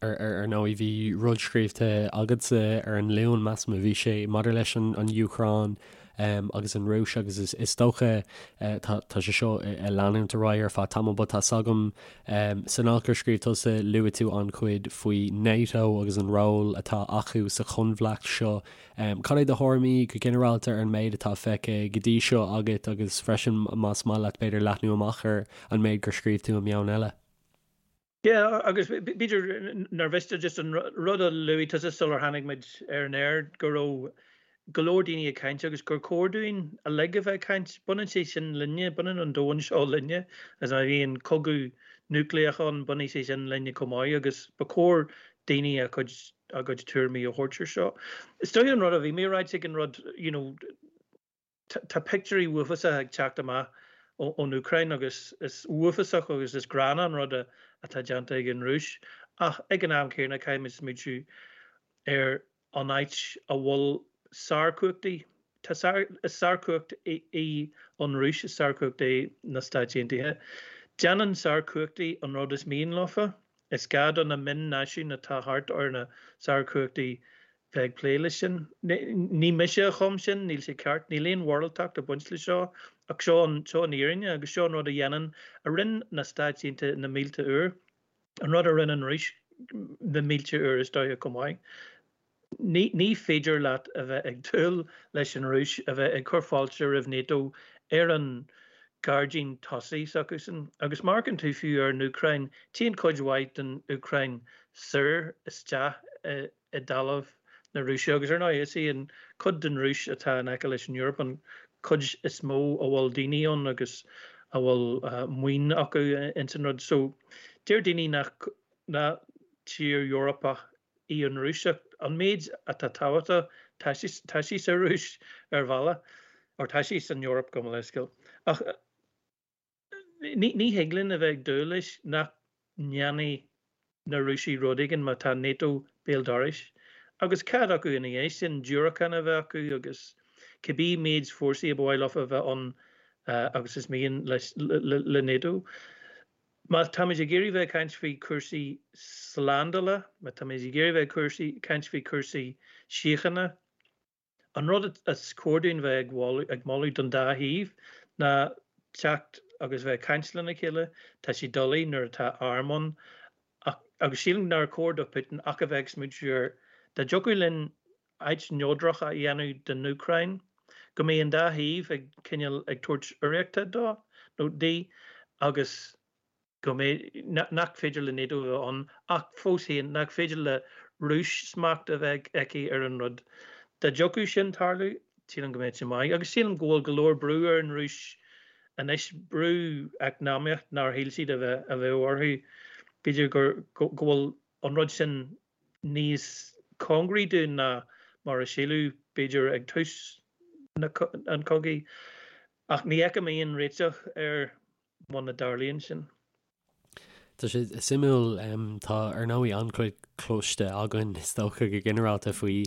Ar ndóigh, bhí rud scríobhta agatsa ar an Luan, measaim a bhí sé, maidir leis an Úcráin agus an Rúis agus is dócha tá sé seo ag leanúint ar aghaidh ar feadh tamaill but tá's agam san alt gur scríobh tusa luaigh tú an-chuid faoi NATO agus an ról atá acu sa choinbhleacht seo. Cad é do thuairimí go ginearálta ar an méid atá feicthe go dtí seo agat agus freisin más maith leat b'fhéidir leathnú amach ar an méid gur scríobh tú i Meon Eile? Yeah, agus b'fhéidir nár mhiste just an rud a luaigh tusa sular tháinig muid ar an aer, go raibh go leor daoine ag caint agus gur chóir dúinn uilig a bheith ag caint. Baineann sé sin linne, baineann an domhan seo linne. Agus má bhíonn cogadh núicléach ann, bainfidh sé sin linne chomh maith agus ba chóir daoine a chuid a gcuid tuairimí a thabhairt ar seo. Is dóigh an rud a bhí mé a ráit ag an rud, you know, Tá pictiúirí uafásacha ag teacht amach ón Úcráin agus is uafásach agus is gránna an rud atá déanta ag an Rúis ach ag an am céanna caithfimid smaointiú ar an áit a bhfuil sárchumhachtaí, tá is sárchumhacht í an Rúis, is sárchumhacht é na Stáit Aontaithe. Déanann sárchumhachtaí an rud is mian leofa. Is gá do na mion-náisiúin atá thart ar na sárchumhachtaí bheith ag plé leis sin. Ní mise a chum sin, níl sé ceart, níl aon mhoráltacht ag baint leis seo, ach seo an, seo an fhírinne agus seo an rud a dhéanann, a rinne na Stáit Aontaithe na mílte uair, an rud a rinne an Rúis na mílte uair is dóiche chomh maith. Ní, ní féidir leat a bheith ag dúil leis an Rúis a bheith ag cur fáilte roimh NATO ar an gairdín tosaigh s'acusan. Agus má amharcann tú fiú ar an Úcráin, téann cuid mhaith den Úcráin soir isteach i, i dtalamh na Rúise agus ar ndóigh is í an chuid den Rúis atá in aice leis an Eoraip an chuid is mó a bhfuil daoine ann agus a bhfuil maoin acu ins an rud. So deir daoine nach nach tír Eorpach í an Rúis ach an méid atá tábhachtach tá sí tá sí sa Rúis ar bhealach or tá sí san Eoraip gabh mo leithscéal. Ach Ní thig linn a bheith ag dúil leis nach ndéanfaidh na Rúisigh rud éigin má tá NATO béal dorais. Agus cead acu ina dhiaidh sin diúracáin a bheith acu agus cibé méid fórsaí a ba mhaith leofa a bheith ann agus is mian le NATO. Má táimid ag iarraidh bheith ag caint faoi chúrsaí slándála, má táimid ag iarraidh bheith ag caint faoi chúrsaí síochána, An rud is cóir dúinn bheith ag moladh don dá thaobh ná teacht agus bheith ag caint lena chéile. Tá sé doiligh nuair atá arm ann ach agus sílim nár chóir do Putin ach a bheith ag smaointiú ar dá dtiocfadh linn áit neodrach a dhéanamh den Úcráin, go mbeidh an dá thaobh ag cineál ag tabhairt urraíochta dó nó di agus go mbeidh, nach féidir le NATO a bheith ann, ach fós féin, nach féidir le Rúis smacht a bheith aici ar an rud. Dá dtiocfadh sin tarlú, sílim go mbeadh sé maith. Agus sílim go bhfuil go leor brú ar an Rúis anois, brú eacnamaíoch nár shíl siad a bheith a bheadh orthu. B'fhéidir gur, go bhfuil an rud sin níos cóngaraí dúinn ná mar a síleadh, b'fhéidir, ag tús an chogaidh. Ach ní fheicim aon réiteach air muna dtarlaíonn sin. Tá sé suimiúil, tá ar ndóigh an-chuid cloiste againn is dócha go ginearálta faoi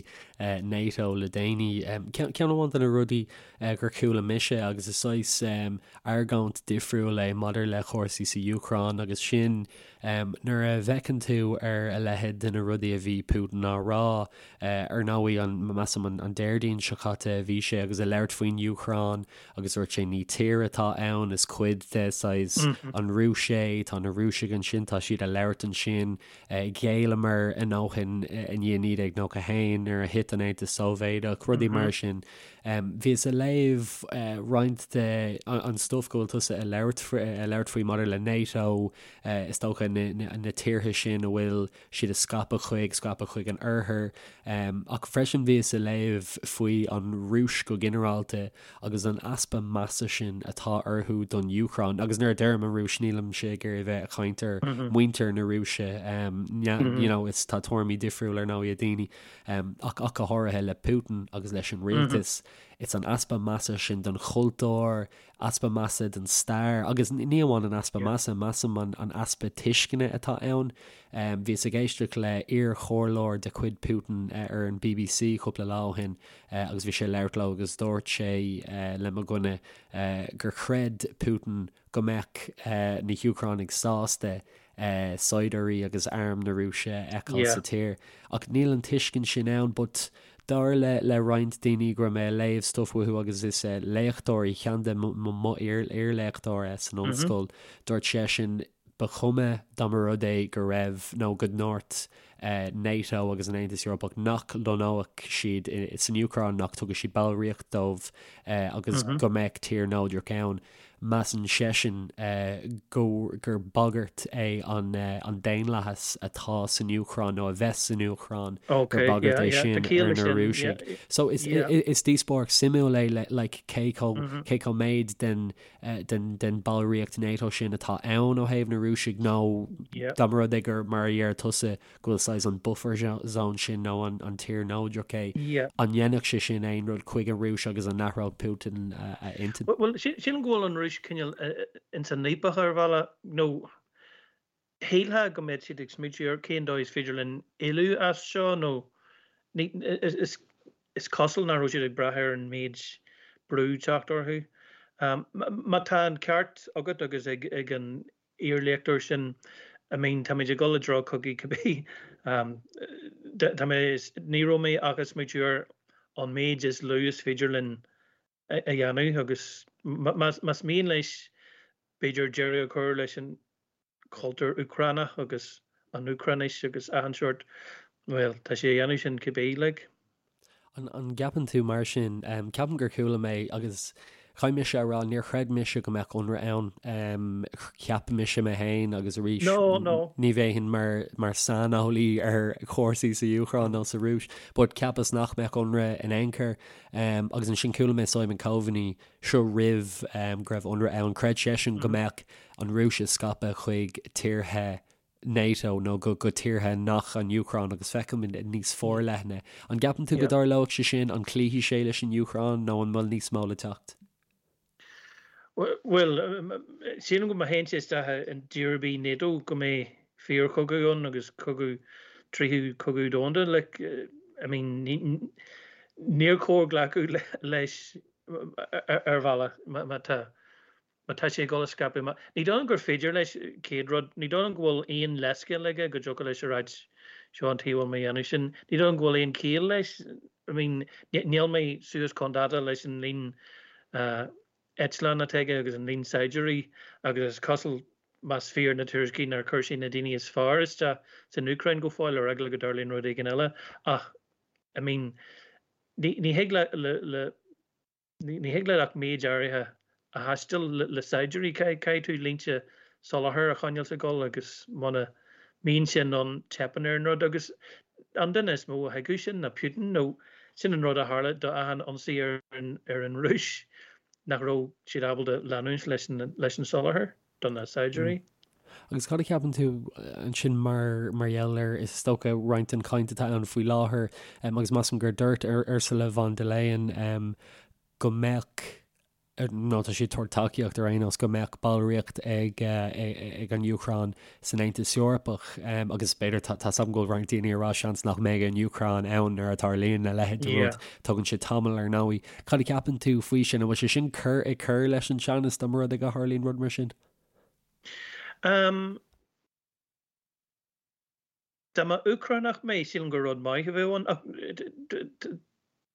NATO le déanaí. Ceann amháin de na rudaí gur chuala mise agus is saghas argóint difriúil é maidir le cúrsaí sa Úcráin agus sin nuair a bhfeiceann tú ar a leithéid de na rudaí a bhí Putin á rá, ar ndóigh an, measaim an Déardaoin seo caite a bhí sé agus ag labhairt faoin Úcráin Agus dúirt sé, ní tír atá ann, is cuid de, saghas, an Rúis é, tá na Rúisigh ansin, tá siad ag labhairt ansin. Ghéilleamar a ndóthain i ndiaidh 1991 nuair a thit an Aontas Sóivéadach, rudaí mar sin. Bhíos ag léamh roinnt de an stuif go bhfuil tusa ag labhairt ag labhairt faoi maidir le NATO, is dócha na tíortha sin a bhfuil siad ag scaipeadh chuig, scaipeadh chuig an oirthear. Ach freisin bhíos ag léamh faoi an Rúis go ginearálta agus an easpa measa sin atá orthu don Úcráin. Agus nuair a deirim an Rúis nílimse ag iarraidh a bheith ag caint ar mhuintir na Rúise, you know, is tá tuairimí difriúil ar ndóigh ag daoine, ach ach go háirithe le Putin agus leis an rialtas. It's an easpa measa sin don chultúr, easpa measa don stair, agus ní amháin an easpa measa, measaim an easpa tuisceana atá ann. Bhíos ag éisteacht le iar-chomhairleoir de chuid Putin ar an bbc cúpla lá ó shin agus bhí sé ag labhairt leo agus dúirt sé le mo dhuine gur chreid Putin go mbeadh na hÚcránaigh sásta. saighdiúirí agus arm na Rúise a fheiceáil sa tír. Ach níl an tuiscint sin ann but dar le le roinnt daoine go raibh mé ag léamh stuff uathu agus is léachtóirí, ceann de mo iar-léachtóir san ollscoil, dúirt seisean ba chuma dá mba rud é go raibh nó go ndúirt NATO agus an Aontas Eorpach nach lonnódh siad san Úcráin, nach dtugadh siad ballraíocht dóibh agus go mbeadh tír neodrach ann. Measann seisean go gur bagairt é an daonlathas atá san Úcráin nó a bheas san Úcráin, gur bagairt é sin ar na Rúisigh. So is díospóireacht suimiúil é le like cé chomh cé chomh méid den den den ballraíocht NATO sin atá ann ó thaobh na Rúisigh nó dá mba rud é gur mar a deir tusa go bhfuil saghas an buffer zone sin nó an tír neodrach é, an ndéanfadh sé sin aon rud chuig an Rúis agus an n-athródh Putin a intinn? Bhuel, sílim go bhfuil an Rúis cineál ins an fhaopach ar bhealach, nó shílfeá go mbeadh siad ag smaointiú ar cén dóigh is féidir linn éalú as seo nó is is cosúil nach raibh siad ag brath ar an méid brú teacht orthu. Má tá an ceart agat agus ag an iarléachtóir sin, I mean táimid ag dul i dtreo cogaidh cibé. Tá mé, ní raibh mé ach ag smaoitiú ar an méid is lú is féidir linn a dhéanamh agus más mian leis b'fhéidir deireadh a chur leis an chultúr Úcránach agus an Úcráinis agus achan seort, bhuel, tá sé a dhéanamh sin cibé, like. An gceapann tú mar sin? Ceapaim gur chuala mé agus caithfidh mise a rá, níor chreid mise go mbeadh ionradh ann. Cheap mise mé féin agus arís ní bheinn mar mar saineolaí ar chúrsaí sa Úcráin nó sa Rúis, but cheapas nach mbeadh ionradh in aon chor. Agus ansin chuala mé Simon Coveney seo roimh go raibh ionradh ann, chreid seisean go mbeadh an Rúis ag scaipeadh chuig tíortha NATO nó go go tíortha nach an Úcráin agus feicim níos forleithne. An gceapann tú go dtarlóidh sé sin? An gcloífidh sé leis an Úcráin nó an bhfuil níos mó le teacht? Bhuel, sílim go má théann sé isteach i dtír ar bith NATO go mbeidh fíorchogadh ann agus cogadh, tríú cogadh domhanda. Like, I mean, níor chóir glacadh leis ar bhealach má tá Má tá sé ag dul a scaipeadh amach. Ní dóigh liom gur féidir leis, chéad rud, ní dóigh liom go bhfuil aon leithscéal aige go dtiocfadh leis a ráit seo an tuige a bhfuil mé a dhéanamh sin. Ní dóigh liom go bhfuil aon chiall leis. I mean, níl mé suas chun dáta leis an líon eitleán atá aige agus an líon saighdiúirí agus is cosúil, más fíor na tuairiscí, nár chuir sé na daoine is fearr isteach san Úcráin go fóill ar eagla go dtarlaíonn rud éigin eile. Ach, I mean, ní thig le, le, Ní thig leat ach méid áirithe a thaisteal le saighdiúirí. Caithfidh tú línte soláthair a choinneáil ag dul agus muna mbíonn sin ann teipeann ar an rud. Agus an duine is mó a thuigfeadh sin ná Putin nó sin an rud a tharla do achan ionsaí ar an Rúis, nach raibh siad ábalta leanúint leis an soláthar. do na saighdiúirí. Agus cad a cheapann tú ansin mar mar gheall ar, is dócha, roinnt den chaint atá ann faoi láthair, agus measaim gur dúirt Ursula von der Leyen go mbeadh, nó tá sí ag tabhairt tacaíocht ar aon nós, go mbeadh ballraíocht ag ag an Úcráin san Aontas Eorpach, agus b'fhéidir, tá 's agam go bhfuil roinnt daoine ag rá seans nach mbeidh an Úcráin ann nuair a tarlaíonn a leithéid de rud, tógann sé tamall ar ndóigh. Cad a cheapann tú faoi sin? An bhfuil sé sin cur ag cur leis an teannas dá mba rud é go tharlaíonn rud mar sin? Um, dá mba Úcránach mé, sílim gur rud maith a bheadh ann. Ach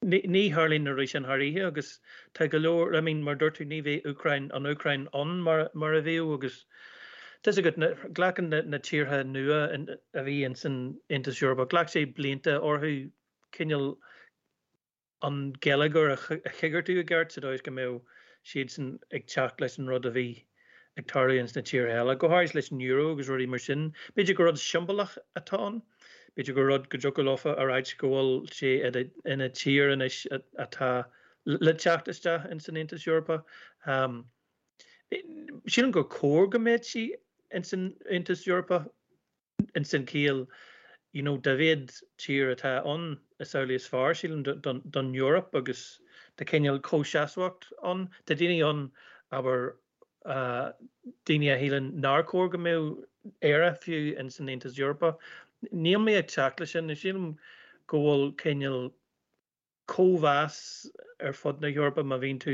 ní tharlaíonn na rudaí sin thar oíche agus tá go leor, I mean, mar dúirt tú, ní bheidh Úcráin, an Úcráin ann mar, mar a bhíodh agus tá 's agat, glacann na, na tíortha nua a bhí ins an Aontas Eorpach, ghlac sé blianta orthu cineál an geilleagar a choigeartú i gceart sa dóigh is go mbeadh siadsan ag teacht leis an rud a bhí ag tarlú ins na tíortha eile, go háirithe leis an euro agus rudaí mar sin. B'fhéidir gur rud siombalach atá ann, b'fhéidir gur rud go dtiocfadh leofa a ráit go bhfuil sé ina tír anois atá le teacht isteach ins an Aontas Eorpach. Sílim gur cóir go mbeadh sí ins an Aontas Eorpach. ins an chiall you know dá mhéad tír atá ann is amhlaidh is fearr sílim don don Eoraip agus tá cineál comhsheasmhacht ann. Tá daoine ann abair daoine a shíleann nár chóir go mbeadh Éire fiú ins an Aontas Eorpach. Níl mé ag teacht leis sin. Sílim go bhfuil cineál cóimheas ar fud na hEorpa má bhíonn tú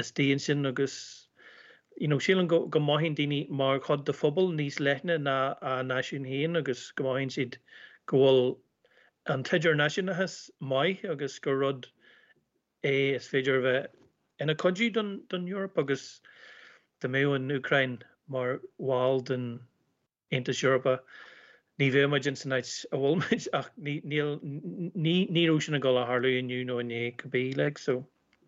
istigh ansin agus. You know, sílim go go mothaíonn daoine mar chuid de phobal níos leithne ná a náisiún féin agus go mothaíonn siad go bhfuil an t-idirnáisiúnachas maith agus gur rud é is féidir a bheith ina chuidiú don don Eoraip agus dá mbeadh an Úcráin mar bhall den Aontas Eorpach ní bheadh muid ins an áit a bhfuil muid ach ní níl ní ní raibh sin ag dul a tharlú inniu nó inné cibé like so.